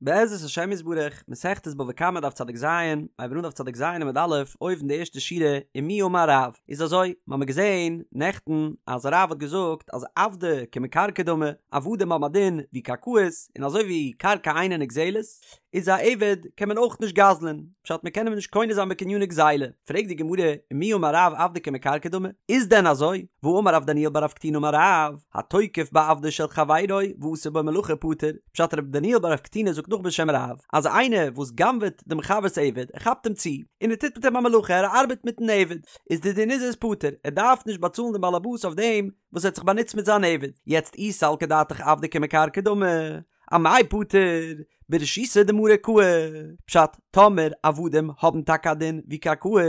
בעזרת השם יתברך, מסכת בבא קמא דף צדיק ז, הייבן אן דף צדיק ז עמוד א', אויבן די ערשטע שורה, ומי אמר רב, איז אזוי, מ'האמיר געזען נעכטן אז רב האט געזאגט אז עבדי כמקרקעי דמי, עבדים האבן א דין ווי קרקעות, און אזוי ווי קרקע אינה נגזלת, איז א עבד קען מען אויך נישט גזל'ען, פשט מ'קען אים נישט קונה זיין בקניני גזילה, פרעגט די גמרא, ומי אמר רב עבדי כמקרקעי דמי, איז דען אזוי? והאמר רב דניאל בר רב קטינא אמר רב, התוקף בעבדו של חברו ועשה בו מלאכה פטור, פשט רב דניאל בר רב קטינא זאגט נאך בשם רב, אז איינער וואס גנב'עט דעם חבר'ס עבד, ער כאפט אים צו, און ער טוט מיט אים א מלאכה, ער ארבעט מיטן עבד, איז די דין איז ער איז פטור, ער דארף נישט באצאלן דעם באלעבאס אויף דעם וואס ער האט זיך באנוצט מיט זיין עבד, יעצט אי סלקא דעתך עבדי כמקרקעי דמי, אמאי פטור, ברשותא דמריה קאי, פשט, טאמער עבדים האבן טאקע א דין ווי קרקעות,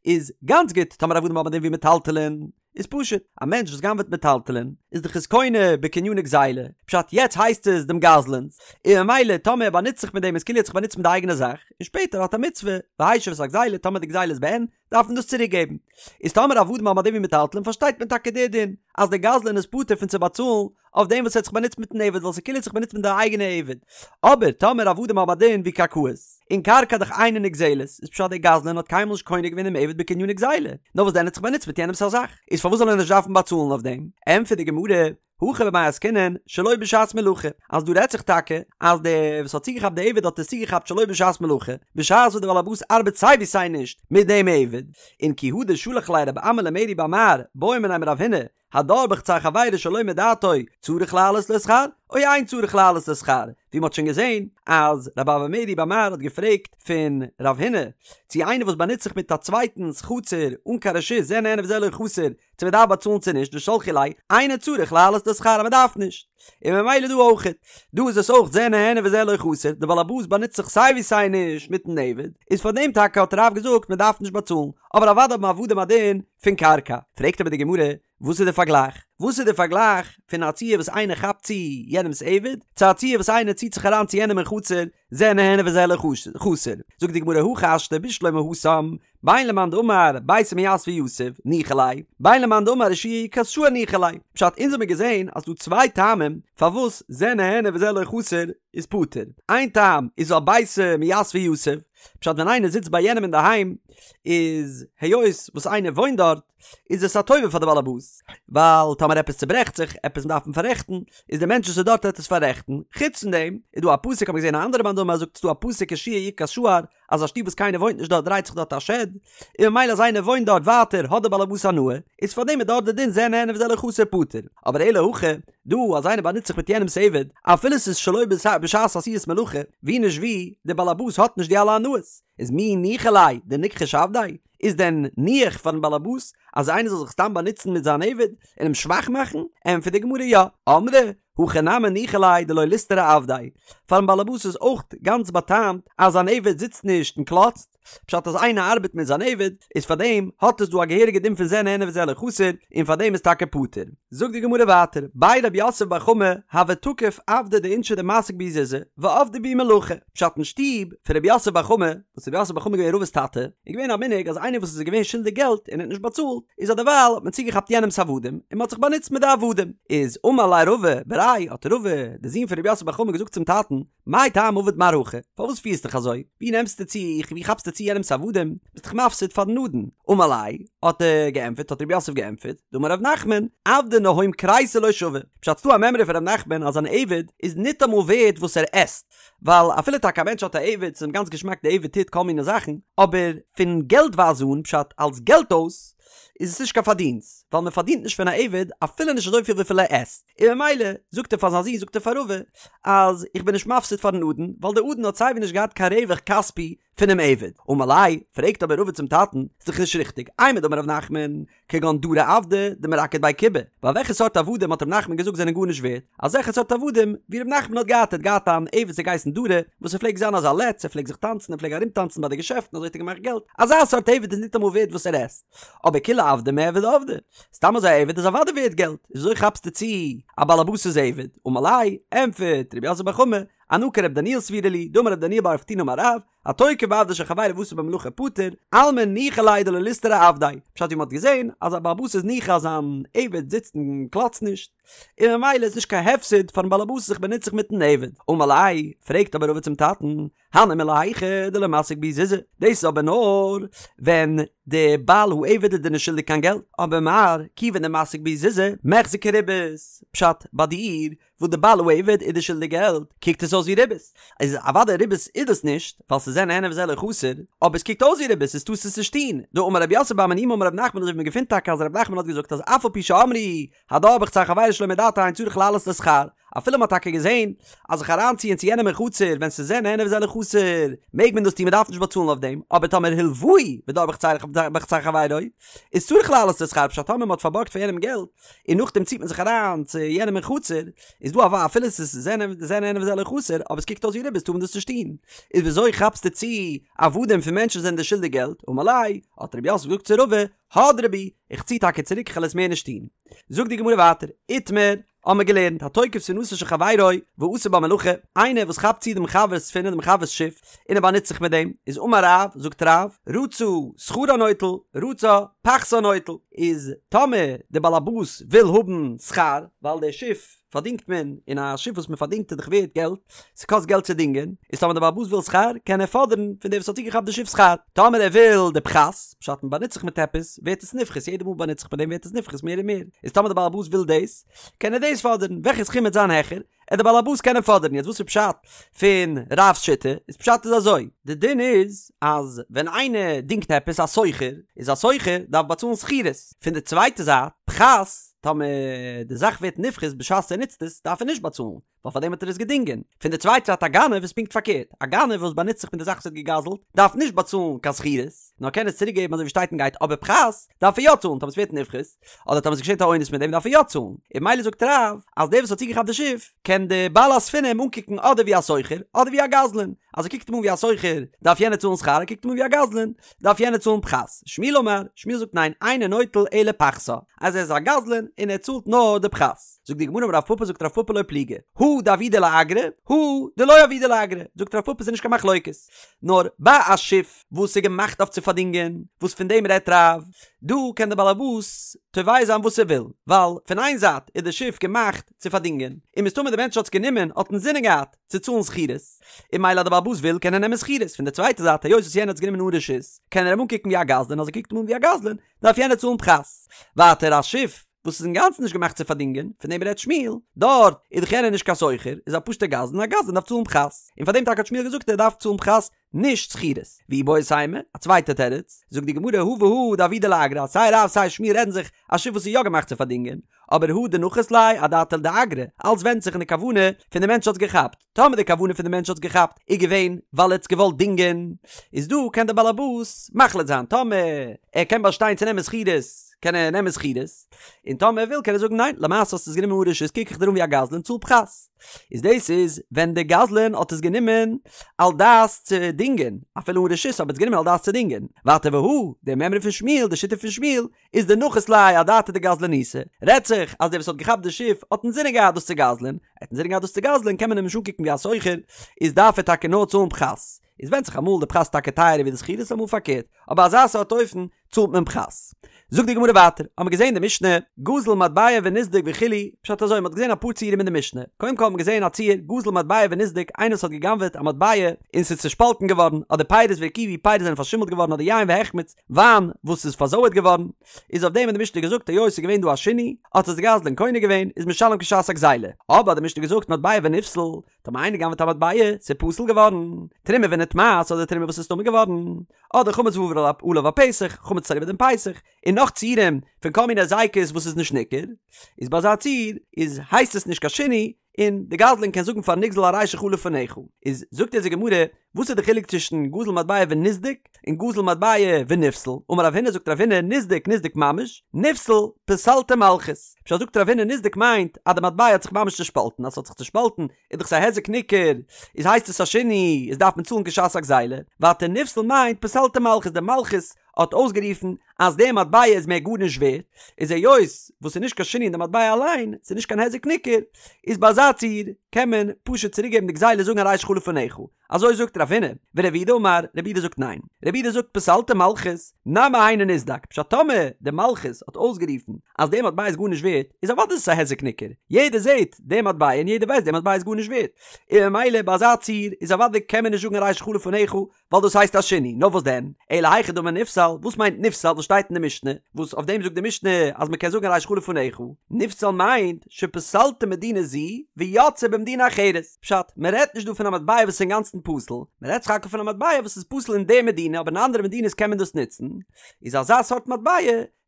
איז גאנץ גוט, טאמער עבדים האבן א דין ווי מטלטלין, איז פשוט, א מענטש וואס גנב'עט מטלטלין, איז דאך עס קונה בקניני גזילה, פשט יעצט הייסט עס דעם גזלן'ס, און ממילא טאמער ער באנוצט זיך מיט דעם איז כאילו ער האט זיך באנוצט מיט די אייגענע זאך, און שפעטער האט א מצוה, והשיב את הגזילה, טאמער די גזילה איז בעין, דארף מען דאס צוריק געבן. איז טאמער עבדים האבן א דין ווי מטלטלין פארשטייט מען טאקע די דין, אז דער גזלן איז פטור פון צו באצאלן אויף דעם וואס ער האט זיך באנוצט מיטן עבד ווייל ס'איז כאילו ער האט זיך באנוצט מיט די אייגענע עבד. אבער טאמער עבדים האבן א דין ווי קרקעות, און קרקע דאך אינה נגזלת, איז פשט דער גזלן האט קיינמאל נישט קונה געווען דעם עבד בקניני גזילה, נאר וואס דען ער האט זיך באנוצט מיט יענעמס א זאך, איז פארוואס זאל ער נישט דארפן באצאלן אויף דעם? ענטפערט די גמרא, הכא במאי עסקינן שלא בשעת מלאכה, אז דא רעדט זיך טאקע אז דער וואס האט צוגעכאפט די עבד האט עס צוגעכאפט שלא בשעת מלאכה, בשעת וואס דער בעל הבית ארבעט סיי ווי סיי נישט מיט דעם עבד, און כי הא דשלח ליה רב אמי למרי בר מר בעא מיניה מרב הונא, הדר בחצר חבירו שלא מדעתו צריך להעלות לו שכר או אין צריך להעלות לו שכר, ווי מ'האט שוין געזען אז רב אבא מרי בר מר האט געפרעגט פון רב הונא צו איינער וואס באנוצט זיך מיט א צווייטנס חצר אן קיין רשות זה נהנה וזה לא חסר צו מ'דארף באצאלן צו נישט ושלחו ליה אינו צריך להעלות לו שכר אז מ'דארף נישט און ממילא דא אויכעט דא איז עס אויך זה נהנה וזה לא חסר די בעל הבית באנוצט זיך סיי ווי סיי נישט מיטן עבד איז פאר דעם טאקע האט רב געזאגט מ'דארף נישט באצאלן אבער אוודאי האבן עבדים א דין פון קרקע. פרעגט אבער די גמרא, וואס איז די פארגלייך? וואס איז די פארגלייך פון א ציור וואס איינער כאפט צו יענעמ'ס עבד, צו א ציור וואס איינער ציט זיך אריין צו יענעם אין חצר, זה נהנה וזה לא חסר? זאגט די גמרא, הכי השתא בשלמא התם, בין למאן דאמר ביתא מיתבא יתיב, ניחא ליה, בין למאן דאמר יהושע יקת שער ניחא ליה. פשט, אונז האמיר געזען אז ס'דא צוויי טעמים פארוואס זה נהנה וזה לא חסר איז פטור. איין טעם איז ווייל ביתא מיתבא יתיב, פשט ווען איינער זיצט ביי יענעם אינדערהיים איז היות וואס איינער וואוינט דארט איז עס א טובה פאר די באלעבאס ווייל טאמער עפעס צוברעכט זיך עפעס דארף מען פאררעכטן איז די מענטש וואס איז דארט וועט עס פאררעכטן חוץ פון דעם איז דא א פסוק האב איך געזען א אנדערע מאן דאמר זאגט ס'דא א פסוק יהושע יקת שער אז א שטוב וואס קיינער וואוינט נישט דארט דרייט זיך דארט א שד און ממילא אז איינער וואוינט דארט ווייטער האט די באלעבאס הנאה איז פאר דעם איז דארט די דין זה נהנה וזה לא חסר פטור אבער אלא הכא דא אז איינער באנוצט זיך מיט יענעמס עבד, אפילו ס'איז שלא בשעת עשיית מלאכה, ווי נישט ווי, דער באלעבאס האט נישט די אלע הנאות, איז מי ניחא ליה דניכחוש עבדיה? איז דען ניחא פארן באלעבאס אז איינער זאל זיך סתם באנוצן מיט זיין עבד און אים שוואך מאכן? ענטפערט די גמרא יא, אמרי הכא נמי ניחא ליה דלא ליסתרי עבדיה, פארן באלעבאס איז אויך גאנץ באטעמט אז זיין עבד זיצט נישט און קלאצט, פשט אז איינער ארבעט מיט זיין עבד, איז פאר דעם האט עס דא א געהעריגע דין פון זה נהנה וזה לא חסר, און פאר דעם איז טאקע פטור. זאגט די גמרא ווייטער, בי רב יוסף בר חמא הוה תקיף עבדי דאינשי דמסיק בהו זוזי, ועבדי בהו מלאכה, פשט אין שטוב פון רב יוסף בר חמא, וואס רב יוסף בר חמא איז געווען רבא'ס טאטע, איז געווען א מנהג אז איינער וואס איז געווען שולדיג געלט און האט נישט באצאלט, איז אדערווייל האט מען צוגעכאפט יענעמ'ס עבדים, און מען האט זיך באנוצט מיט די עבדים. איז אמר ליה רבא בריה, האט רבא, די זון פון רב יוסף בר חמא געזאגט צום טאטן, מאי טעמא עביד מר הכי? פארוואס פירסט דיך אזוי? ווי נעמסטו צו, ווי כאפסטו צו יענעמ'ס עבדים? ביסט דאך מפסיד פארן אדון. אמר ליה, האט ער געענטפערט, האט רב יוסף געענטפערט, דאמר רב נחמן, עבדא נהום כריסיה לא שוי. פשט ס'דא א מימרא פון רב נחמן אז אן עבד איז ניטאמאל ווערד וואס ער עסט. ווייל אפילו טאקע א מענטש האט א עבד, ס'איז אים גאנץ געשמאק די עבד טוט כל מיני זאכן, אבער פון געלט ווייז אן, פשט אלס געלט אויס, איז עס נישט קיין פארדינסט, ווייל מען פארדינט נישט פון א עבד אפילו נישט אזויפיל וויפיל ער עסט, און ממילא זאגט ער פאר זיין זון זאגט ער פאר רבא אז איך בין נישט מפסיד פארן אדון, ווייל דער אדון האט סייווי נישט געהאט קיין רווח כספי פונעם עבד. אמר ליה, פרעגט אבער רבא צום טאטן, ס'איז דאך נישט ריכטיג, אימר דאמר רב נחמן, כגון דרי עבדי דמרקד בי כובי, ווייל וועלכע סארט עבדים האט רב נחמן געזאגט זענען גארנישט ווערד, אזעלכע סארט עבדים ווי רב נחמן האט געהאט, ער האט געהאט אן עבד וואס האט געהייסן דרי, וואס ער פלעגט זיין אזא לץ, ער פלעגט זיך טאנצן, ער פלעג ארומטאנצן ביי די געשעפטן, אזוי האט ער געמאכט געלט, אזא סארט עבד איז ניטאמאל ווערד וואס ער עסט. אבער כולי עבדי מיעבד עבדי, סתם אזוי א עבד איז אוודאי ווערד געלט, איז וויאזוי כאפסטו צו א באלעבאס'ס עבד? אמר ליה, ענטפערט רב יוסף בר חמא, אנא כר' דניאל סבירא לי, דאמר ר' דניאל בר רב קטינא אמר רב, התוקף בעבדו של חברו ועשה בו מלאכה פטור, אלמא ניחא ליה דלא ליסתרי עבדיה, פשט ווי מ'האט געזען אז א בעל הבית איז ניחא אז זיין עבד זיצט און קלאצט נישט, און ממילא איז נישט קיין הפסד פארן בעל הבית זיך באנוצט זיך מיטן עבד. אמר ליה, פרעגט אבער רבא צום טאטן, הני מילי היכא דלא מסיק בהו זוזי, דאס איז אבער נאר ווען די בעל העבד איז דיר נישט שולדיג קיין געלט, אבער מר כיוון דמסיק בהו זוזי, מיחזי כריבית, פשט, ביי דיר וואס די בעל העבד איז דיר שולדיג געלט, קוקט עס אויס ווי ריבית, איז אוודאי ריבית איז דאס נישט, ווייל ס'איז זה נהנה וזה לא חסר, אבער עס קוקט אויס ווי ריבית, איז טארסט עס נישט טון, דאמר רב יוסף בר מניומי אמר רב נחמן אזוי ווי מ'געפינט טאקע אז רב נחמן האט געזאגט אז אף על פי שאמרו הדר בחצר חבירו שלא מדעתו אין צריך להעלות לו שכר, אפילו מ'האט טאקע געזען אז זיך אריינציען צו יענעם אין חצר ווען ס'איז זה נהנה וזה לא חסר מעג מען דאס טון מ'דארף נישט באצאלן אויף דעם, אבער טאמער הלוהו ודר בחצר חברו איז צריך להעלות לו שכר פשט טאמער מ'האט פארבארגט פאר יענעם געלט און נאכדעם ציט מען זיך אריין צו יענעם אין חצר איז דא א אפילו ס'איז זה נהנה וזה לא חסר אבער עס קוקט אויס ווי ריבית טאר מען דאס נישט טון איז וויאזוי כאפסטו צו עבדים פון מענטשן וואס זענען דיר שולדיג געלט אמר ליה האט רב יוסף געזאגט צו רבא הדרי בי, איך צי טאקע צוריק איך וועל עס מער נישט טון. זאגט די גמרא ווייטער, איתמר, האמער געלערנט, התוקף ספינתו של חברו ועשה בה מלאכה, איינער וואס כאפט צו דעם חבר'ס ספינה, דעם חבר'ס שיף, און ער באנוצט זיך מיט דעם, איז אמר רב, זאגט רב, רצה שכרה נוטל, רצה פחתה נוטל, איז טאמער דער בעל הבית וויל האבן שכר, ווייל דער שיף פארדינגט מען, און א שיף וואס מען פארדינגט איז דאך ווערט געלט, ס'קאסט געלט צו דינגען, איז טאמער דער בעל הבית וויל שכר, קען ער פאדערן פון דער וואס האט צוגעכאפט די שיף שכר. טאמער ער וויל די פחת, פשט מען באנוצט זיך מיט עפעס, ווערט עס נפחת, יעדע מאל מ'באנוצט זיך מיט דעם ווערט עס נפחת מער און מער, איז טאמער דער בעל הבית וויל דאס, קען ער דאס פאדערן, וועלכע סכום וועט זיין העכער, עט דער בעל הבית קענען פאדערן, יעצט וואס איז פשט פון רב'ס שיטה, איז פשט איז אזוי, די דין איז אז ווען איינער דינגט עפעס א שוכר, איז א שוכר דארף באצאלן שכירות, פון די צווייטע זייט, פחת, טאמער די זאך ווערט נפחת בשעת ער נוצט עס, דארף ער נישט באצאלן, ווייל פאר דעם האט ער עס געדינגען. פון די צווייטע זייט א גנב איז פונקט פארקערט, א גנב וואס באנוצט זיך מיט די זאך וואס ער האט געגזלט, דארף נישט באצאלן קיין שכירות, נאר קען עס צוריק געבן אזוי ווי שטייט און גייט, אבער פחת דארף ער יא צאלן טאמער עס ווערט נפחת, אדער טאמער עס געשעט א אונס מיט דעם דארף ער יא צאלן. און ממילא זאגט רב, אז דער וואס האט צוגעכאפט די שיף, קען די בעל הספינה אים אנקוקן אדער ווי א שוכר, אדער ווי א גזלן. אז ער קוקט אים אן ווי א שוכר, דארף יענער צאלן שכר, ער קוקט אים אן ווי א גזלן, דארף יענער צאלן פחת. שמואל אמר, שמואל זאגט ניין, אינו נוטל אלא פחתה, אז ער איז א גזלן און ער צאלט נאר די פחת. זאגט די גמרא אמר רב פפא זאגט רב פפא לא פליגי, הא דעבידא לאגרא, הא דלא עבידא לאגרא, זאגט רב פפא ס'איז נישט קיין מחלוקת, נאר ביי א שיף וואס איז געמאכט אויף צו פארדינגען, וואס פון דעם רעדט רב, דא קען דער בעל הבית תובע זיין וואס ער וויל, ווייל פון איין זייט איז די שיף געמאכט צו פארדינגען, און מסתמא דער מענטש האט עס גענומען האט אינזינען געהאט צו צאלן שכירות, און ממילא אז דער בעל הבית וויל קען ער נעמען שכירות, פון די צווייטע זייט היות וואס יענער האט עס גענומען אן רשות, קען ער אים אנקוקן ווי א גזלן, אז ער קוקט אים אן ווי א גזלן, דארף יענער צאלן פחת. ווייטער א שיף וואס איז אינגאנצן נישט געמאכט צו פארדינגען, פון דעם רעדט שמואל, דארט איז דאך יענער נישט קיין שוכר, איז א פשוט'ער גזלן, א גזלן דארף צאלן פחת. און פאר דעם טאקע האט שמואל געזאגט ער דארף צאלן פחת, נישט שכירות. ואיבעית אימא, א צווייטע תירוץ, זאגט די גמרא הא והא דעבידא לאגרא, אז סיי רב סיי שמואל רעדן זיך א שיף וואס איז יא געמאכט צו פארדינגען, אבער הא דנחית ליה אדעתא דאגרא, אלץ ווענדט זיך אין די כוונה פון די מענטש האט עס געכאפט, טאמער די כוונה פון די מענטש האט עס געכאפט איז געווען ווייל ער האט עס געוואלט דינגען, איז דא קען דער בעלעבאס מחליט זיין, טאמער ער קען באשטיין צו נעמען שכירות קען ער נעמען שכירות, און טאמער ער וויל קען ער זאגן ניין, למעשה האסטו עס גענומען אן רשות קוק איך דיר אן ווי א גזלן צאל פחת. איז דאס איז ווען די גזלן האט עס גענומען על דעת צו דינגען, אפילו אן רשות אבער האט עס גענומען על דעת צו דינגען. ווייטער והא, די מימרא פון שמואל, די שיטה פון שמואל, איז דנחית ליה אדעתא דגזלנותא, רעדט זיך אז דער וואס האט געכאפט די שיף האט אינזינען געהאט דאס צו גזל'ען, ער האט אינזינען געהאט דאס צו גזל'ען קען מען אים נישט אנקוקן ווי א שוכר, איז דארף ער טאקע נאר צאלן פחת. איז ווענדט זיך אמאל די פחת איז טאקע טייערער ווי די שכירות אמאל פארקערט, אבער אזא סארט אופן צאלט מען פחת. זאגט די גמרא ווייטער, האמיר געזען די משנה, גזל מטבע ונסדק וכו', פשט אזוי, מ'האט געזען אפאר ציורים אין די משנה, קודם כל האט מען געזען א ציור, גזל מטבע ונסדק, איינער וואס האט גע'גנב'עט א מטבע און ס'איז צושפאלטן געווארן, אדער פירות והרקיבו, פירות זענען פארשימלט געווארן אדער יין והחמיץ, וויין וואס איז פארזויערט געווארן, איז אויף דעם האט די משנה געזאגט היות ס'איז געווען דא א שינוי, האט עס די גזלן קונה געווען, איז משלם כשעת הגזילה. אבער האט די משנה געזאגט מטבע ונפסל, טאמער איינער גנב'עט א מטבע, ס'איז פסול געווארן, תרומה ונטמאת אדער תרומה וואס איז טמא געווארן, אדער חמץ ועבר עליו הפסח, חמץ איז אריבער דעם פסח, און נאך ציורים פון כל מיני היזקות וואס איז נישט ניכר, איז ביי אזא ציור איז הייסט עס נישט קיין שינוי, און די גזלן קען זאגן פארן נגזל הרי שלך לפניך, איז זאגט אונז די גמרא, וואס איז די חילוק צווישן גזל מטבע ונסדק און גזל מטבע ונפסל? אמר רב הונא זאגט רב הונא נסדק נסדק ממש, נפסל פסלתו מלכות. פשט זאגט רב הונא נסדק מיינט אז די מטבע האט זיך ממש צושפאלטן, אז ס'האט זיך צושפאלטן איז דאך ס'א היזק ניכר, איז הייסט עס א שינוי, איז דארף מען צאלן כשעת הגזילה. ווייטער נפסל מיינט פסלתו מלכות, די מלכות האט אויסגערופן אז די מטבע איז מער גארנישט ווערט, איז היות וואס ס'איז נישט קיין שינוי אין די מטבע אליין, ס'איז נישט קיין היזק ניכר, איז ביי אזא ציור קען מען פשוט צוריקגעבן די גזילה זאגן הרי שלך לפניך, אזוי זאגט רב הונא, ורב יהודה אמר, רב יהודה זאגט ניין, רב יהודה זאגט פסלתו מלכות, נמי היינו נסדק, פשט טאמער די מלכות האט אויסגערופן אז די מטבע איז גארנישט ווערט, איז אוודאי איז עס א היזק ניכר, יעדער זעט די מטבע און יעדער ווייסט די מטבע איז גארנישט ווערט, און ממילא ביי אזא ציור איז אוודאי קען מען נישט זאגן הרי שלך לפניך, ווייל דאס הייסט א שינוי, נאר וואס דען? אלא היכי דמי נפסל, וואס מיינט נפסל וואס שטייט אין די משנה, וואס אויף דעם זאגט די משנה אז מען קען זאגן הרי שלך לפניך, נפסל מיינט שפסלתו מדינה זו ויצאה במדינה אחרת, פשט, מען רעדט נישט דא פון א מטבע וואס איז אינגאנצן פסול, מען רעדט סך הכל פון א מטבע וואס איז פסול אין די מדינה אבער אין אנדערע מדינות קען מען דאס נוצן, איז אזא סארט מטבע,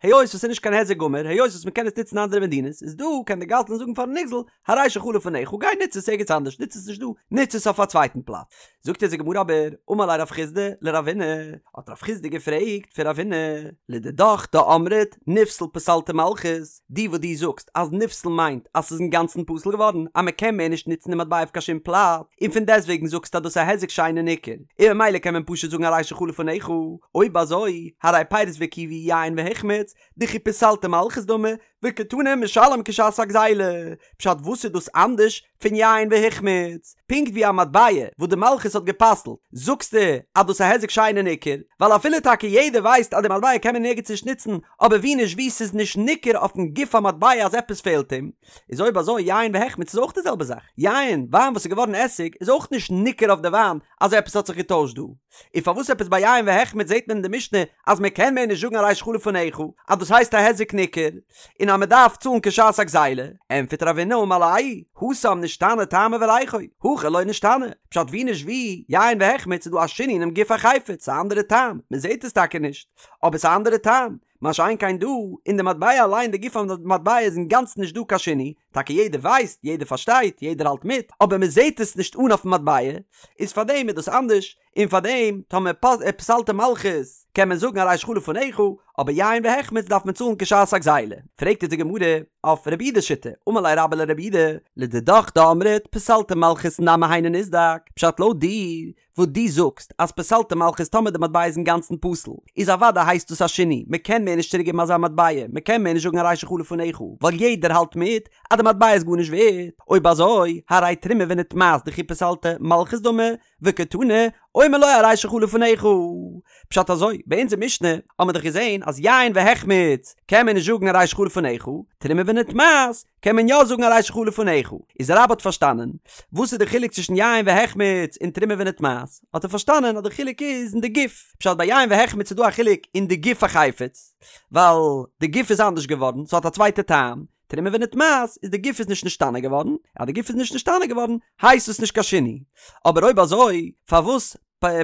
היות וואס ס'איז נישט קיין היזק גמור, היות וואס מען קען עס נוצן אין אנדערע מדינות, איז דא קען די גזלן זאגן פארן נגזל, הרי שלך לפניך, גיי נוץ עס ערגעץ אנדערש, נוץ עס נישט דא, נוץ עס אויף א צווייטן פלאץ. זאגט אונז די גמרא אבער, אמר ליה רב חסדא לרב הונא, האט רב חסדא געפרעגט פון רב הונא, לדידך דאמרת נפסל פסלתו מלכות, דו וואס דו זאגסט אז נפסל מיינט אז ס'איז אינגאנצן פסול געווארן, אז מען קען מער נישט נוצן די מטבע אויף קיין שום פלאץ, און פון דעסטוועגן זאגסטו אז דאס איז א היזק שאינו ניכר, און ממילא קען מען פשוט זאגן הרי שלך לפניך, אויב אזוי, הרי פירות והרקיבו יין והחמיץ, דכי פסלתו מלכות דמי, וקתני משלם כשעת הגזילה, פשט וואס איז דאס אנדערש פון יין והחמיץ? פונקט ווי א מטבע וואס די מלכות האט גע'פסל'ט, זאגסטו אז דאס איז א היזק שאינו ניכר, ווייל אפילו טאקע יעדער ווייסט אז די מטבע קען מען נערגעץ נישט נוצן, אבער ווי נישט ווי ס'איז נישט ניכר אויפן גוף המטבע אז עפעס פעלט אים, איז אויב אזוי יין והחמיץ איז אויך די זעלבע זאך, יין, וויין וואס איז געווארן עסיג, איז אויך נישט ניכר אויף די וויין אז עפעס האט זיך געטוישט דא. און פארוואס עפעס ביי יין והחמיץ זעט מען אין די משנה אז מען קען מער נישט זאגן הרי שלך לפניך אז דאס הייסט א היזק ניכר און אז מען דארף צאלן כשעת הגזילה, ענטפערט רב הונא אמר ליה, התם נשתנה טעמו וריחו, הכא לא נשתנה, פשט ווי נישט ווי, יין והחמיץ איז דא א שינוי אינעם גוף החפץ, ס'איז א אנדערע טעם, מען זעט עס טאקע נישט, אבער ס'איז א אנדערע טעם, מה שאין כן דא, אין די מטבע אליין די גוף המטבע איז אינגאנצן נישט דא קיין שינוי, טאקע יעדער ווייסט, יעדער פארשטייט, יעדער האלט מיט, אבער מען זעט עס נישט אן אויפן מטבע, איז פארדעם איז דאס אנדערש, און פארדעם טאמער פסלתו מלכות קען מען זאגן הרי שלך לפניך, אבער יין והחמיץ דארף מען צאלן כשעת הגזילה. פרעגט אונז די גמרא אויף רב יהודה'ס שיטה, אמר ליה רבה לרב יהודה, לדידך דאמרת פסלתו מלכות נמי היינו נסדק, פשט לויט דיר וואס דו זאגסט אז פסלתו מלכות טאמער די מטבע איז אינגאנצן פסול איז אוודאי הייסט דאס א שינוי מען קען מער נישט צוריק געבן אזא מטבע מען קען מער נישט זאגן הרי שלך לפניך ווייל יעדער האלט מיט אז די מטבע איז גארנישט ווערט אויב אזוי הרי תרומה ונטמאת דכי פסלתו מלכות דמי וקתני אומר לו הרי שלך לפניך פשט אזוי ביי אונזער משנה האט מען דאך געזען אז יין והחמיץ קען מען נישט זאגן הרי שלך לפניך תרומה ונטמאת קען מען יא זאגן הרי שלך לפניך, איז רבה האט פארשטאנען וואס איז די חילוק צווישן יין והחמיץ און תרומה ונטמאת, האט ער פארשטאנען אז די חילוק איז אין די גוף, פשט ביי יין והחמיץ איז דא א חילוק אין די גוף החפץ, ווייל די גוף איז אנדערש געווארן, ס'האט א צווייטע טעם, תרומה ונטמאת איז די גוף איז נישט נשתנה געווארן, אז די גוף איז נישט נשתנה געווארן הייסט עס נישט קיין שינוי, אבער אויב אזוי פארוואס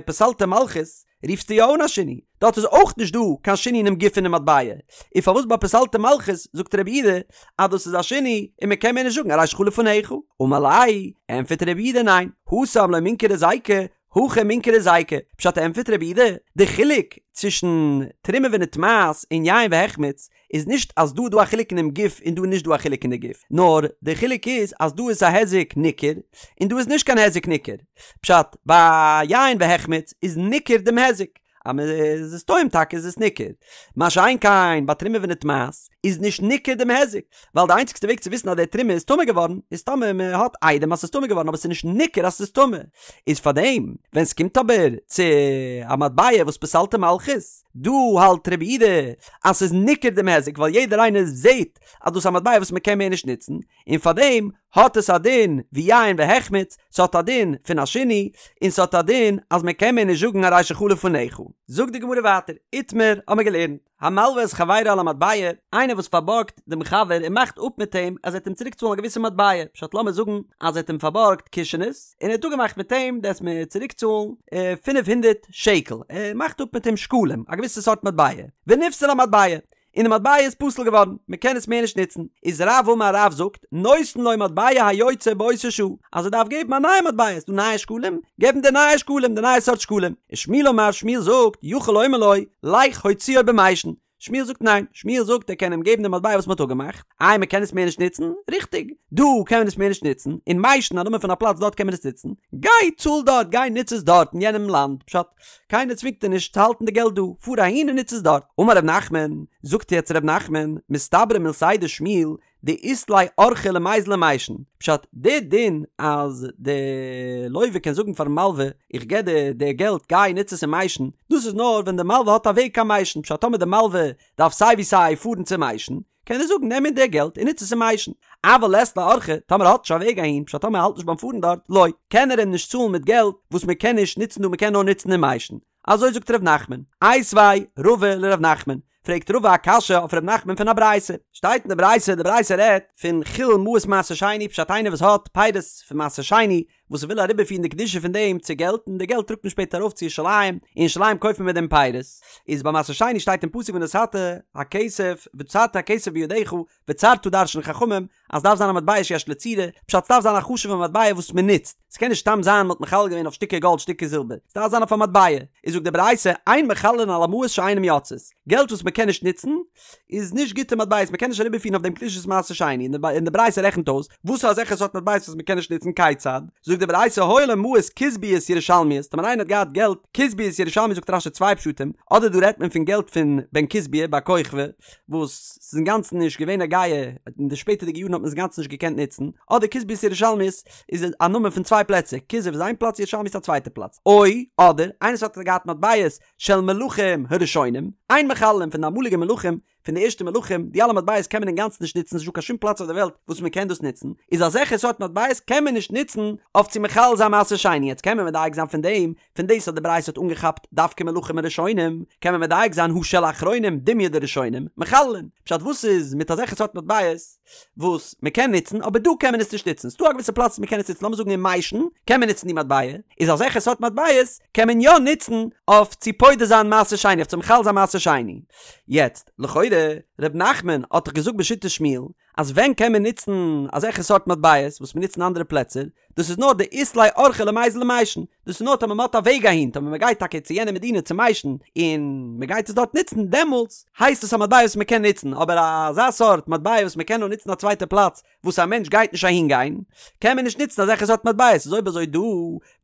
פסלתו מלכות רופסטו יא אן א שינוי, דארט איז אויך נישט דא קיין שינוי אינעם גוף פונעם מטבע, און פארוואס ביי פסלתו מלכות זאגט רב יהודה אז דאס איז א שינוי און מען קען מער נישט זאגן הרי שלך לפניך? אמר ליה, ענטפערט רב יהודה ניין, התם לא מינכר היזיקא, הכא מינכר היזיקא, פשט ענטפערט רב יהודה, די חילוק צווישן תרומה ונטמאת און יין והחמיץ איז נישט אז דא איז דא א חילוק אינעם גוף און דא איז נישט דא א חילוק אין די גוף, נאר די חילוק איז אז דא איז א היזק ניכר און דא איז נישט קיין היזק ניכר. פשט, ביי יין והחמיץ איז ניכר דעם היזק, אז מען איז עס טועם טאקע איז עס ניכר, מה שאין כן ביי תרומה ונטמאת איז נישט ניכר דעם היזק, ווייל די איינציגסטע וועג צו וויסן אז די תרומה איז טמא געווארן איז טאמער מען האט עדים אז ס'איז טמא געווארן אבער ס'איז נישט ניכר אז ס'איז טמא, איז פארדעם ווען ס'קומט אבער צו א מטבע וואס פסלתו מלכות, דא האלט רב יהודה אז ס'איז ניכר דעם היזק ווייל יעדער איינער זעהט אז דאס איז א מטבע וואס מ'קען מער נישט נוצן, און פארדעם האט עס א דין ווי יין והחמיץ, ס'האט א דין פון א שינוי, און ס'האט א דין אז מ'קען מער נישט זאגן הרי שלך לפניך. זאגט די גמרא ווייטער, איתמר האמיר געלערנט, המלווה את חברו על המטבע, איינער וואס פארבארגט דעם חבר און מאכט אפ מיט אים אז ער וועט אים צוריק צאלן א געוויסע מטבע, פשט לאמיר זאגן אז ער האט אים פארבארגט קישענעס, און ער האט אפגעמאכט מיט אים דו וועסט מיר צוריק צאלן 500 שקל, ער מאכט אפ מיט אים שקלים, א געוויסע סארט מטבע, ונפסלה המטבע, און די מטבע איז פסול געווארן, מען קען עס מער נישט נוצן, איז רב אמר רב זאגט, נותן לו מטבע היוצא באותה שעה, אז ער דארף געבן א נייע מטבע, ס'דא נייע שקלים, געב אים די נייע שקלים, די נייע סארט שקלים, ושמואל אמר שמואל זאגט, יכול לומר לו, לך הוציאו במישן, שמואל זאגט ניין, שמואל זאגט ער קען אים געבן די מטבע וואס מען האט אפגעמאכט, איי מען קען עס מער נישט נוצן? ריכטיג, דא קען מען עס מער נישט נוצן, אין מיישן א נאמען פון א פלאץ דארט קען מען עס נוצן, גיי צאל דארט, גיי נוץ עס דארט אין יענעם לאנד, פשט, קיינער צווינגט דיר נישט צו האלטן די געלט דא, פאר אהין און נוץ עס דארט. אמר ר' נחמן, זאגט יעצט ר' נחמן, מסתברא מילתיה דשמואל, דאית ליה אורחא למיזל למישן, פשט, די דין אז די לוה קען זאגן פארן מלווה איך געב דיר די געלט גיי נוץ עס אין מיישן, דאס איז נאר ווען די מלווה האט א וועג קיין מיישן, פשט טאמער די מלווה דארף סיי ווי סיי פארן צו מיישן, קען ער זאגן נעם אין די געלט און נוץ עס אין מיישן, אבל לית ליה אורחא, טאמער ער האט נישט א וועג אהין, פשט טאמער ער האלט נישט ביים פארן דארט, לא, קען ער אים נישט צאלן מיט געלט וואס מען קען נישט נוצן דא מען קען נאר נוצן אין מיישן, אזוי זאגט ר' נחמן, איתיביה רבא לר' נחמן, פרעגט רבא א קשיא אויף ר' נחמן פון א ברייתא, שטייט אין די ברייתא, די ברייתא רעדט פון חילול מעות מעשר שני, פשט איינער וואס האט פירות פון מעשר שני, וואס ער וויל אריבערפירן די קדושה פון דעם צו געלט, און די געלט טראגט מען שפעטער ארויף צו ירושלים, אין ירושלים קויפט מען מיט דעם פירות, איז ביי מעשר שני שטייט אין פסוק ונתת הכסף וצרת הכסף בידך, וצרת דרש'ן חכמים אז ס'דארף זיין א מטבע שיש לו צורה, פשט ס'דארף זיין א חשוב'ע מטבע וואס מען נוצט, ס'קען נישט סתם זיין מ'האט מחלל געווען אויף שטיקער גאלד שטיקער זילבער, ס'דארף זיין אויף א מטבע, איז זאגט די ברייתא אין מחללין על המעות שאינן יוצאות, געלט וואס מ'קען נישט נוצן איז נישט גוטע מטבעות, מ'קען נישט אריבערפירן אויף דעם קדושת מעשר שני, און די ברייתא רעכנט אויס וואס איז אזעלכע סארט מטבעות וואס מ'קען נישט נוצן כיצד, זאגט די ברייתא היו לו מעות כוזביות ירושלמיות, טאמער איינער האט געהאט געלט כוזביות ירושלמיות זאגט רש"י צוויי פשטים, אדער דא רעדט מען פון געלט פון בן כוזביה בר כוכבא, וואס ס'איז אינגאנצן נישט געווען נוגע, אין די שפעטערדיגע יארן האט מען עס אינגאנצן נישט געקענט נוצן, אדער כוזביות ירושלמיות איז א נאמען פון צוויי פלעצער, כוזב איז איין פלאץ ירושלמי איז א צווייטע פלאץ, או, אדער, איינער וואס האט געהאט מטבעות של מלכים הראשונים, אין מחללין פון די אמאליגע מלכים, פון די ערשטע מלכים, די אלע מטבעות קען מען אינגאנצן נישט נוצן, ס'נישט דא קיין שום פלאץ אויף די וועלט וואס מען קען דאס נוצן, איז אזעלכע סארט מטבעות קען מען נישט נוצן אויף צו מחלל זיין מעשר שני, יעצט קען מען מדייק זיין פון דעם פון דאס אז די ברייתא האט אנגעכאפט דווקא מלכים הראשונים, קען מען מדייק זיין הא של אחרונים דומיא דראשונים, מחללין. פשט וואס איז מיט אזעלכע סארט מטבעות וואס מען קען נוצן אבער דא קען מען עס נישט נוצן, ס'דא א געוויסע פלאץ וואס מען קען עס נוצן לאמיר זאגן אין מיישן קען מען נוצן די מטבע, איז אזעלכע סארט מטבעות קען מען יא נוצן אויף צו פודה זיין מעשר שני אויף צו מחלל זיין מעשר שני. יעצט לכאורה ר' נחמן האט דאך געזאגט בשיטת שמואל אז ווען קען מען נוצן אזעלכע סארט מטבעות וואס מען נוצט אין אנדערע פלעצער, דאס איז נאר דאית ליה אורחא למיזל למישן, דאס איז נאר טאמער מען האט א וועג אהין, טאמער מען גייט טאקע צו יענע מדינה צו מיישן און מען גייט עס דארט נוצן, דעמאלטס הייסט עס א מטבע וואס מען קען נוצן, אבער אזא סארט מטבע וואס מען קען נאר נוצן א צווייטע פלאץ וואס א מענטש גייט נישט אהין גיין, קען מען נישט נוצן אזעלכע סארט מטבעות, איז אויב אזוי דא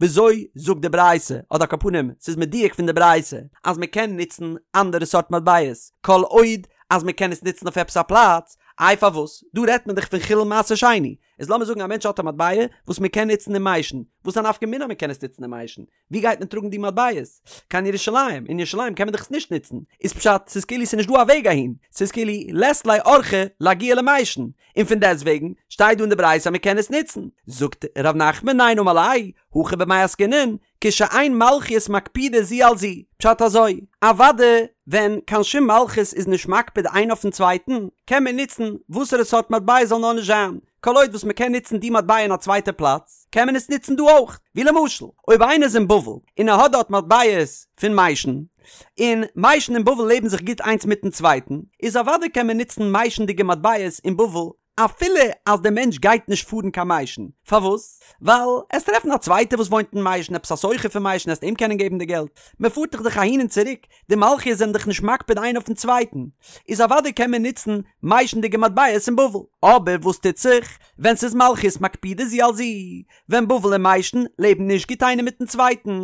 וויאזוי זאגט די ברייתא, אדער על כל פנים ס'איז מדויק פון די ברייתא אז מען קען נוצן אנדערע סארט מטבעות כל עוד אז מען קען עס נוצן אויף עפעס א פלאץ, איי פארוואס? דא רעדט מען דאך פון חילול מעשר שני, איז לאמיר זאגן א מענטש האט א מטבע וואס מען קען נוצן אין מיישן, וואס איז א נפקא מינה מען קען עס נוצן אין מיישן? ווי גייט מען טראגן די מטבעות? קיין ירושלים, אין ירושלים קען מען דאך עס נישט נוצן, איז פשט ס'איז כאילו ס'איז נישט דא א וועג אהין, ס'איז כאילו לית ליה אורחא לאגיע למישן, און פון דעסטוועגן שטייט דא אין די ברייתא אז מען קען עס נוצן, זאגט ר' נחמן ניין אמר ליה, הכא במאי עסקינן, כשאין מלכיות מקפידות זו על זו, פשט אזוי, אוואדע ווען קיין שום מלכות איז נישט מקפיד איין אויפן צווייטן, קען מען נוצן וואסערע סארט מטבע זאל נאר נישט זיין, כל עוד וואס מען קען נוצן די מטבע אין א צווייטע פלאץ, קען מען עס נוצן דא אויך, ווי למשל, אויב איינער איז אין בבל און ער האט דארט מטבעות פון מיישן, און מיישן און בבל לעבן זיך גוט איינס מיטן צווייטן, איז אוודאי קען מען נוצן מיישנדיגע מטבעות אין בבל אפילו אז דער מענטש גייט נישט פארן קיין מיישן, פארוואס? ווייל עסט טרעפן א צווייטער וואס וואוינט אין מיישן עפעס א סוחר פון מיישן עסט אים קענען געבן די געלט, מען פארט דאך דאך אהין און צוריק, די מלכיות זענען דאך נישט מקפיד איינער אויפן צווייטן, איז אוודאי קען מען נוצן מיישנדיגע מטבעות אין בבל. אבער וואס טוט זיך ווען ס'איז מלכיות מקפידות זו על זו, ווען בבל און מיישן לעבן נישט גוט איינער מיטן צווייטן,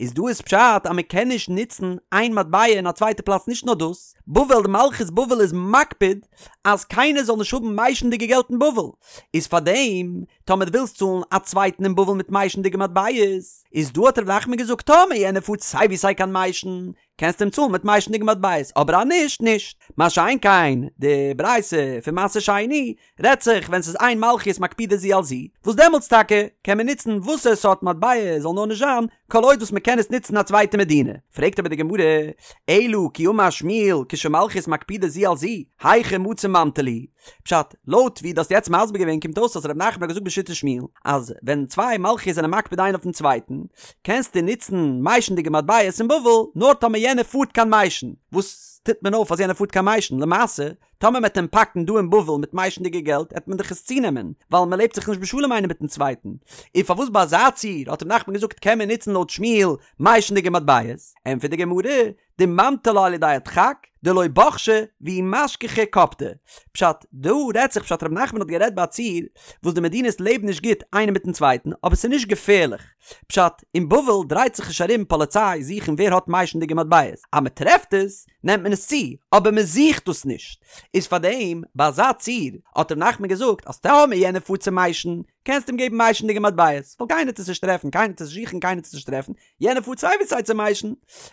איז דא איז פשט אז מען קען נישט נוצן איין מטבע אין א צווייטע פלאץ נישט נאר דאס, בבל די מלכות בבל איז מקפיד אז קיינער זאל נישט האבן מיישנדיגע געלט אין בבל, איז פארדעם טאמער דו ווילסט צאלן א צווייטן אין בבל מיט מיישנדיגע מטבעות, איז דא האט ר' נחמן געזאגט טאמער יענער פארט סיי ווי סיי קיין מיישן, קענסטו אים צאלן מיט מיישנדיגע מטבעות, אבער אז נישט, נישט. מה שאין כן, די ברייתא פון מעשר שני רעדט זיך ווען ס'איז אין מלכיות מקפידות זו על זו, וואס דעמאלטס טאקע קען מען נוצן וואסער סארט מטבע זאל נאר נישט זיין, כל עוד וואס מ'קען עס נוצן אין א צווייטע מדינה. פרעגט אבער די גמרא, אלא כי אמר שמואל כשמלכיות מקפידות זו על זו, היכי מצי ממטי להו? פשט, לויט ווי דו האסט יעצט מסביר געווען קומט אויס אז ר' נחמן האט געזאגט בשיטת שמואל אז ווען צוויי מלכיות זענען מקפיד איינער אויפן צווייטן קענסטו נוצן מיישנדיגע מטבעות אין בבל נאר טאמער יענער פארט קיין מיישן וואס. טוט מען אויף אז יענער פארט קיין מיישן? למעשה, טאמער מ'עט אים פאקן דא אין בבל מיט מיישנדיגע געלט עט מען דאך עס צונעמען, ווייל מ'לעבט זיך נישט בשלום איינער מיטן צווייטן. און פארוואס ביי אזא ציור האט ר' נחמן געזאגט קען מען נוצן לויט שמואל מיישנדיגע מטבעות? ענטפערט די גמרא, דממטי לה על ידי הדחק, דלא בחשי, ואי משכחי קפדי. פשט, דא רעדט זיך פשט ר' נחמן האט גערעדט ביי א ציור וואס די מדינות לעבן נישט גוט איינער מיטן צווייטן אבער ס'איז נישט געפערליך. פשט, אין בבל דרייט זיך נישט ארום פאליציי זוכן ווער האט מיישנדיגע מטבעות. אז מ'טרעפט עס, נעמט מען עס צו, אבער מ'זוכט דאס נישט. איז פארדעם ביי אזא ציור האט ר' נחמן געזאגט אז טאמער יענער פארט צו מיישן, קענסט אים געבן מיישנדיגע מטבעות, ווייל קיינער וועט עס נישט טרעפן, קיינער וועט עס נישט זוכן, קיינער וועט עס נישט טרעפן, יענער פארט סיי ווי סיי צו מיישן,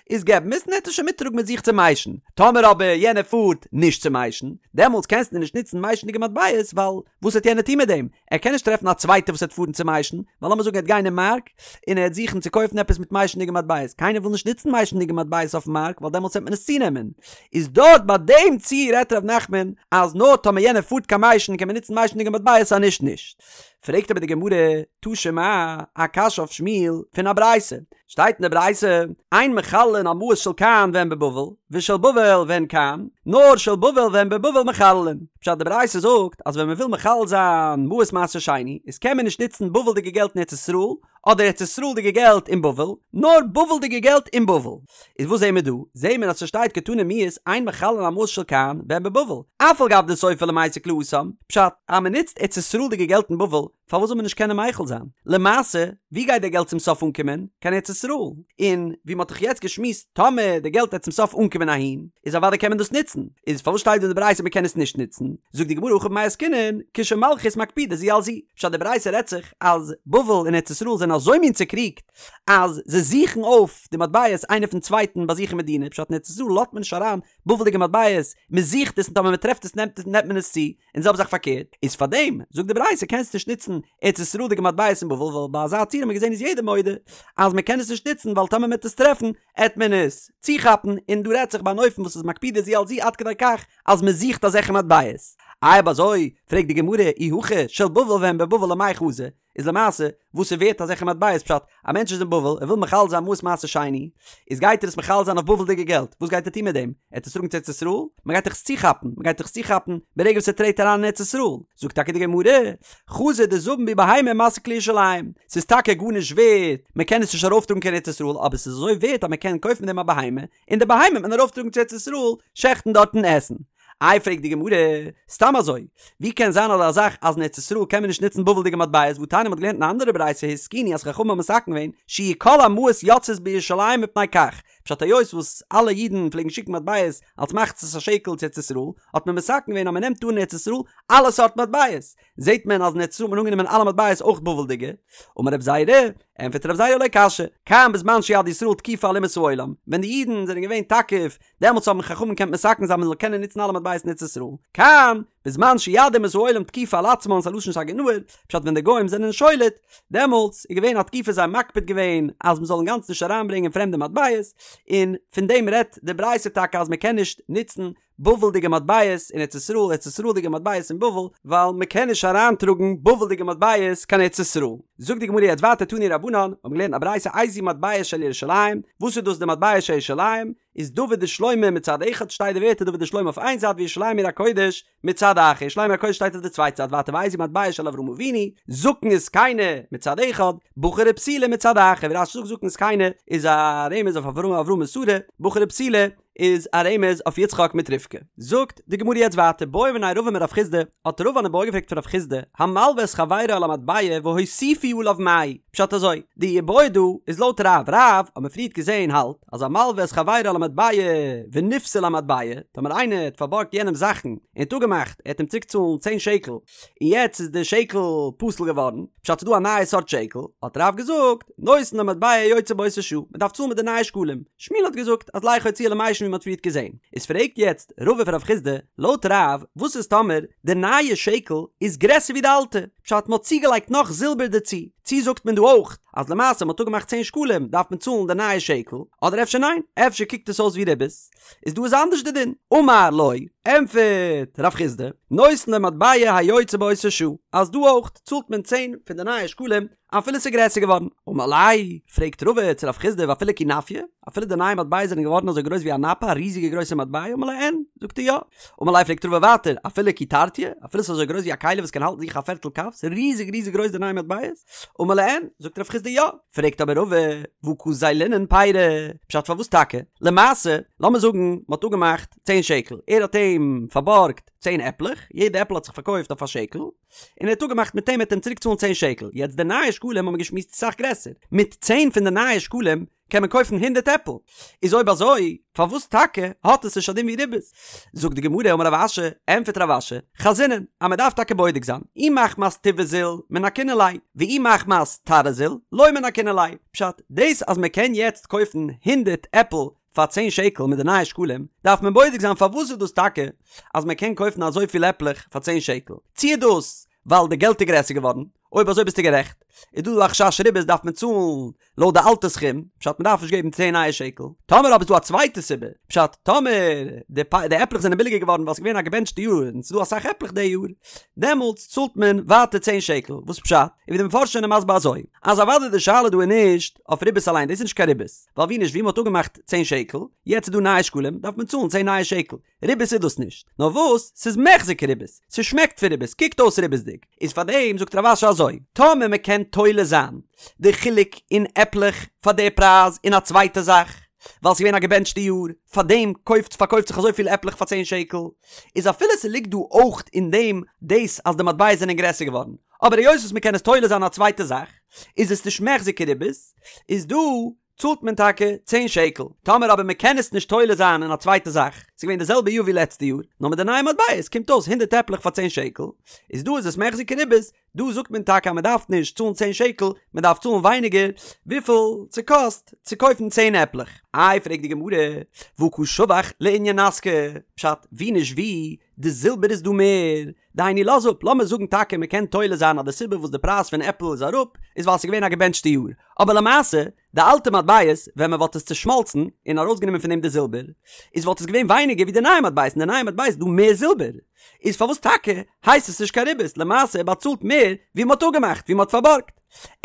איז געב אים עס און ער וועט עס שוין מיטטראגן מיט זיך צו מיישן. טאמער אבער יענער פארט נישט צו מיישן, דעמאלטס קענסטו נישט נוצן מיישנדיגע מטבעות, ווייל וואס וועט יענער טון מיט דעם? ער קען נישט טרעפן א צווייטער וואס וועט פארן צו מיישן, ווייל לאמיר זאגן ער וועט גיין אין מארק, און ער וועט זוכן צו קויפן עפעס מיט מיישנדיגע מטבעות, קיינער וויל נישט נוצן מיישנדיגע מטבעות אויפן מארק, ווייל דעמאלטס וועט מען עס צונעמען. איז דארט ביי דעם ציור רעדט ר' נחמן אז נאר טאמער יענער פארט קיין מיישן קען מען נוצן מיישנדיגע מטבעות אז נישט נישט. פרעגט אבער די גמרא, תא שמע, א קשיא אויף שמואל פון א ברייתא, שטייט אין די ברייתא, אין מחללין על מעות של כאן והן בבבל, ושל בבל והן כאן, נאר של בבל והן בבבל מחללין. פשט די ברייתא זאגט אז ווען מען וויל מחלל זיין מעות מעשר שני, איז קען מען נישט נוצן בבל'דיגע געלט אין ארץ ישראל, אדער ארץ ישראל'דיגע געלט אין בבל, נאר בבל'דיגע געלט אין בבל. איז וואס זעהן מיר דא? זעהן מיר אז ס'שטייט קתני מיהת אין מחללין על מעות של כאן והן בבבל, אף על גב דסופו למיסק להתם, פשט, אז מ'נוצט ארץ ישראל'דיגע געלט אין בבל, פארוואס זאל מען נישט קענען מוחל זיין? למעשה, ווי גייט די געלט צום סוף אנקומען? קיין ארץ ישראל. און ווי מ'האט דאך יעצט געשמועסט, טאמער די געלט וועט צום סוף אנקומען אהין, איז אוודאי קען מען דאס נוצן. איז פארוואס שטייט דא אין די ברייתא מ'קען עס נישט נוצן? זאגט די גמרא הכא במאי עסקינן, כשמלכיות מקפידות זו על זו. פשט די ברייתא רעדט זיך אז בבל און ארץ ישראל זענען אזוי מין צוקריגט אז זיי זוכן אויף די מטבעות איינער פון צווייטן ביי זיך אין מדינה, פשט אין ארץ ישראל לאזט מען נישט אריין בבל'דיגע מטבעות, מען זוכט עס און טאמער מען טרעפט עס נעמט נעמט מען עס צו, און זעלבע זאך פארקערט, איז פארדעם זאגט די ברייתא קענסט נישט נוצן ארץ ישראל'דיגע מטבעות אין בבל ווייל ביי אזא ציור האט מען געזען איז יעדער מודה אז מען קען עס נישט נוצן ווייל טאמער מען וועט עס טרעפן עט מען עס צוכאפן, און דא רעדט זיך ביי אן אופן וואס איז מקפידות זו על זו עד כדי כך אז מען זוכט אזעלכע מטבעות. אויב אזוי, פרעגט די גמרא, אי הכי, של בבל והן בבבל למאי חזו, איז למעשה, וואס איז ווערט אזעלכע מטבעות? פשט, א מענטש איז אין בבל, ער וויל מחלל זיין מעות מעשר שני, איז גייט ער עס מחלל זיין אויף בבל'דיגע געלט, וואס גייט ער טון מיט דעם? ער וועט עס טראגן צו ארץ ישראל? מען גייט דאך עס צוכאפן, מען גייט דאך עס צוכאפן ברגע וואס ער טרעט אריין אין ארץ ישראל. זאגט טאקע די גמרא, חזו דזבין בהו בהמה ומסיק לירושלים, ס'איז טאקע גארנישט ווערט, מען קען עס נישט ארויפטראגן קיין ארץ ישראל, אבער ס'איז אזוי ווערט אז מען קען קויפן מיט דעם א בהמה, און די בהמה וועט מען ארויפטראגן צו ארץ ישראל, שעכטן דארט און עסן. איי פרעגט די גמרא, סתם אזוי, ווי קען זיין אזא זאך אז אין ארץ ישראל קען מען נישט נוצן בבל'דיגע מטבעות והתניא מ'האט געלערנט אין א אנדערע ברייתא התקינו אז חכמים האבן מתקן געווען שיהו כל המעות יוצאות בירושלים מפני כך, פשט היות וואס אלע אידן פלעגן שיקן מטבעות אלס מחצית השקל צו ארץ ישראל, האט מען מתקן געווען אז מען נעמט אן אין ארץ ישראל אלע סארט מטבעות, זעט מען אז אין ארץ ישראל האט מען אנגענומען אלע מטבעות אויך בבל'דיגע. אמר רב זירא, ענטפערט רב זירא לא קשיא, כאן בזמן שיד ישראל תקיפה על אומות העולם, ווען די אידן זענען געווען תקיף, דעמאלטס האבן חכמים געקענט מתקן זיין מען זאל קענען נוצן אלע מטבעות אין ארץ ישראל, כאן, בזמן שיד אומות העולם תקיפה על עצמן ס'א לשון סגי נהור, פשט ווען די גוים זענען שולט, דעמאלטס איז געווען א תקופה זיי האבן מקפיד געווען אז מען זאל אינגאנצן נישט אריינברענגען פרעמדע מטבעות, און פון דעם רעדט די ברייתא טאקע אז מען קען נישט נוצן בבל'דיגע מטבעות אין ארץ ישראל, ארץ ישראל'דיגע מטבעות אין בבל, ווייל מען קען נישט אריינטראגן בבל'דיגע מטבעות קיין ארץ ישראל. זאגט די גמרא יעצט ווייטער תנו רבנן, מיר האבן געלערנט א ברייתא איזהו מטבע של ירושלים, וואס איז דאס די מטבע של ירושלים? איז דוד ושלמה מצד אחד שטייט די ווערטער דוד ושלמה אויף איין זייט וירושלים עיר הקודש מצד אחר, ירושלים עיר הקודש שטייט אויף די צווייטע זייט ווייטער ואיזהו מטבע של אברהם אבינו, זקן וזקינה מצד אחד, בחור ובתולה מצד אחר, ווי רש"י זאגט זקן וזקינה איז א רמז אויף אברהם אברהם און שרה, בחור ובתולה איז א רמז אויף יצחק מיט רבקה. זאגט די גמרא יעצט ווייטער בעא מיניה רבא מרב חסדא, האט רבא אן איבעיא געפרעגט פון רב חסדא, המלווה את חברו על המטבע והוסיפו עליו מהו? פשט אזוי, די איבעיא דא איז לויט רב, רב האט מען פריערט געזען האלט אז המלווה את חברו על המטבע ונפסלה המטבע, טאמער איינער האט פארבארגט יענעם זאכן און האט אפגעמאכט ער וועט אים צוריק צאלן צען שקל, און יעצט איז די שקל פסול געווארן, פשט ס'איז דא א נייע סארט שקל, האט רב געזאגט, נותן לו מטבע יוצא באותה שעה, מ'דארף צאלן מיט די נייע שקלים. שמואל האט געזאגט אז לך הוציאו למישן ווי מ'האט פריערט געזען. איז פרעגט יעצט רבא פון רב חסדא, לויט רב, וואס איז טאמער די נייע שקל איז גרעסער ווי די אלטע? פשט מ'האט צוגעלייגט נאך זילבער דערצו, צי זאגט מען דא אויך אז למעשה מ'האט אפגעמאכט צען שקלים דארף מען צאלן די נייע שקל, אדער אפשר ניין, אפשר קוקט עס אויס ווי ריבית, איז דא איז אנדערש די דין. אמר לו, ענטפערט רב חסדא, נותן לו מטבע היוצא באותה שעה, אז דא אויך צאלט מען צען פון די נייע שקלים אפילו ס'איז גרעסער געווארן. אמר ליה, פרעגט רבא צו רב חסדא ואפילו כי נפיא, אפילו די נייע מטבעות זענען געווארן אזוי גרויס ווי א נפה, א ריזיגע גרויסע מטבע, אמר ליה אין, זאגט ער יא. אמר ליה פרעגט רבא ווייטער, אפילו כי תרטיא, אפילו ס'איז אזוי גרויס ווי א כלי וואס קען האלטן זיך א פערטל קב, ס'איז ריזיג ריזיג גרויס די נייע מטבעות, אמר ליה אין, זאגט רב חסדא יא. פרעגט אבער רבא, והא קא זיילינן פירי, פשט פארוואס טאקע? למעשה, לאמיר זאגן מ'האט אפגעמאכט צען שקל, ער האט אים פארבארגט צען עפלעך, יעדע עפל האט זיך פארקויפט אויף א שקל, און ער האט אפגעמאכט מיט אים ער וועט אים צוריק צאלן צען שקל, יעצט די נייע שקלים האבן מיר געשמועסט איז אסאך גרעסער, מיט צען פון די נייע שקלים קען מען קויפן הונדערט עפל, איז אויב אזוי פארוואס טאקע האט עס נישט א דין ווי ריבית? זאגט די גמרא אמר רב אשי, ענטפערט רב אשי, חזינן, אז מען דארף טאקע בודק זיין, אי מחמת טיבא זיל מנכינן ליה, ואי מחמת תרעא זיל לא מנכינן ליה, פשט, דאס אז מען קען יעצט קויפן הונדערט עפל פאר צען שקל מיט די נייע שקלים, דארף מען בודק זיין פארוואס איז דאס טאקע אז מען קען קויפן אזויפיל עפלעך פאר צען שקל, צי איז דאס ווייל די געלט איז גרעסער געווארן, אויב אזוי ביסטו גערעכט, איז דא דא א חשש ריבית דארף מען צאלן לויט די אלטע סכום, פשט מען דארף נישט געבן צען נייע שקל, טאמער אבער איז דא א צווייטע סיבה, פשט טאמער די די עפלעך זענען ביליגער געווארן ווייל ס'איז געווען א געבענטשטע יאר און ס'איז דא אסאך עפלעך די יאר, דעמאלטס צאלט מען ווייטער צען שקל, וואס פשט? און ווי די מפרשים זענען מסביר אזוי, אז אוודאי די שאלה דא איז נישט אויף ריבית אליין, דאס איז נישט קיין ריבית, ווייל ווי נישט ווי מ'האט אפגעמאכט צען שקל, יעצט איז דא נייע שקלים דארף מען צאלן צען נייע שקל, ריבית איז דאס נישט, נאר וואס ס'איז מיחזי כריבית, ס'שמעקט פון ריבית, קוקט אויס ריבית'דיג, איז פאר דעם זאגט רב אשי אזוי, טאמער מ'קען תולה זיין די חילוק אין עפלעך פאר די פרייז אין א צווייטע זאך, ווייל ס'איז געווען א געבענטשטע יאר, פאר דעם קויפט פארקויפט זיך אזויפיל עפלעך פאר צען שקל, איז אפילו ס'ליגט דא אויך אין דעם דאס אז די מטבעות זענען גרעסער געווארן, אבער היות וואס מ'קען עס תולה זיין אין א צווייטע זאך, איז עס נישט מיחזי כריבית, איז דא צאלט מען טאקע צען שקל, טאמער אבער מען קען עס נישט תולה זיין אין א צווייטע זאך, ס'איז געווען די זעלבע יאר ווי לעצטע יאר, נאר מיט די נייע מטבעות קומט אויס הונדערט עפלעך פאר צען שקל, איז דא איז עס מיחזי כריבית, דא זאגט מען טאקע אז מען דארף נישט צאלן צען שקל, מען דארף צאלן ווייניגער וויפיל ס'קאסט צו קויפן צען עפלעך. איי פרעגט די גמרא, והא קא שבח לענין נסכא, פשט, ווי נישט ווי, די זילבער איז דא מער, דהיינו לאז אפ, לאמיר זאגן טאקע מען קען תולה זיין אז די סיבה וואס די פרייז פון עפל איז אראפ איז ווייל ס'איז געווען א געבענטשטע יאר, אבער למעשה די אלטע מטבעות ווען מען וואלט עס צושמאלצן און ארויסגענומען פון דעם די זילבער איז וואלט עס געווען ווייניגער ווי די נייע מטבעות אין די נייע מטבעות איז דא מער זילבער איז פארוואס טאקע הייסט עס נישט קיין ריבית למעשה ער באצאלט מער ווי מען האט אפגעמאכט ווי מען האט פארבארגט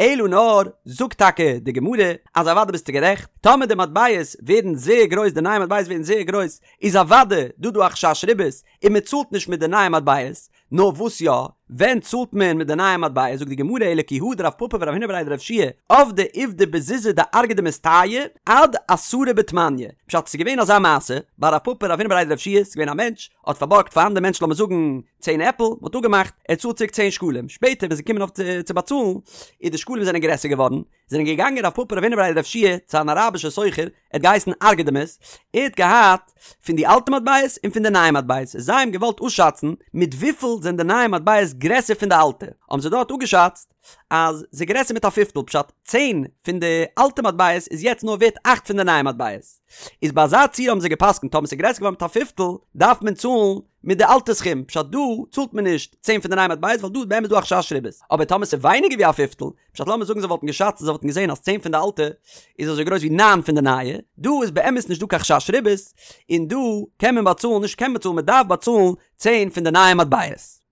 אלא נאר זאגט טאקע די גמרא אז אוודאי ביסטו גערעכט טאמער די מטבעות ווערן זייער גרויס די נייע מטבעות ווערן זייער גרויס איז אוודאי דא דא א חשש ריבית און מען צאלט נישט מיט די נייע מטבעות נאר וואס יא? ווען צאלט מען מיט די נייע מטבע? זאגט די גמרא אלא כי הא דרב פפא ורב הונא בריה דרב יהושע עבדי עובדא בזוזי דארגדמס טייעא עד עשרה בתמניא. פשט, ס'איז געווען אזא מעשה, ביי רב פפא רב הונא בריה דרב יהושע, ס'איז געווען א מענטש, האט פארבארגט פאר אנדער מענטש לאמיר זאגן צען עפל, מ'האט אפגעמאכט ער צאלט צוריק צען שקלים, שפעטער ווען ס'איז געקומען אויף צו באצאלן, איז די שקלים זענען גרעסער געווארן, זענען געגאנגען רב פפא רב הונא בריה דרב יהושע צו אן אראבישער סוחר, ער האט געהייסן ארגדמס, ער האט געהאט פון די אלטע מטבעות און פון די נייע מטבעות, זיי האבן געוואלט אפשאצן מיט וויפיל זענען די נייע מטבעות גרעסער פון די אלטע, האבן זיי דארט אפגעשאצט אז ס'איז גרעסער מיט א פיפטל, פשט, צען פון די אלטע מטבעות איז יעצט נאר ווערט אכט פון די נייע מטבעות, איז ביי אזא ציור האבן זיי גע'פסק'נט טאמער ס'איז גרעסער געווארן מיט א פיפטל דארף מען צאלן מיט די אלטע סכום, פשט דא צאלט מען נישט צען פון די נייע מטבעות ווייל דא איז באמת דא א חשש ריבית, אבער טאמער ס'איז ווייניגער ווי א פיפטל, פשט לאמיר זאגן זיי וואלטן געשאצט און זיי וואלטן געזען אז צען פון די אלטע איז אזוי גרויס ווי ניין פון די נייע, דא איז באמת נישט דא קיין חשש ריבית, און דא קען מען באצאלן, נישט קען מען באצאלן, מען דארף באצאלן צען פון די נייע מטבעות.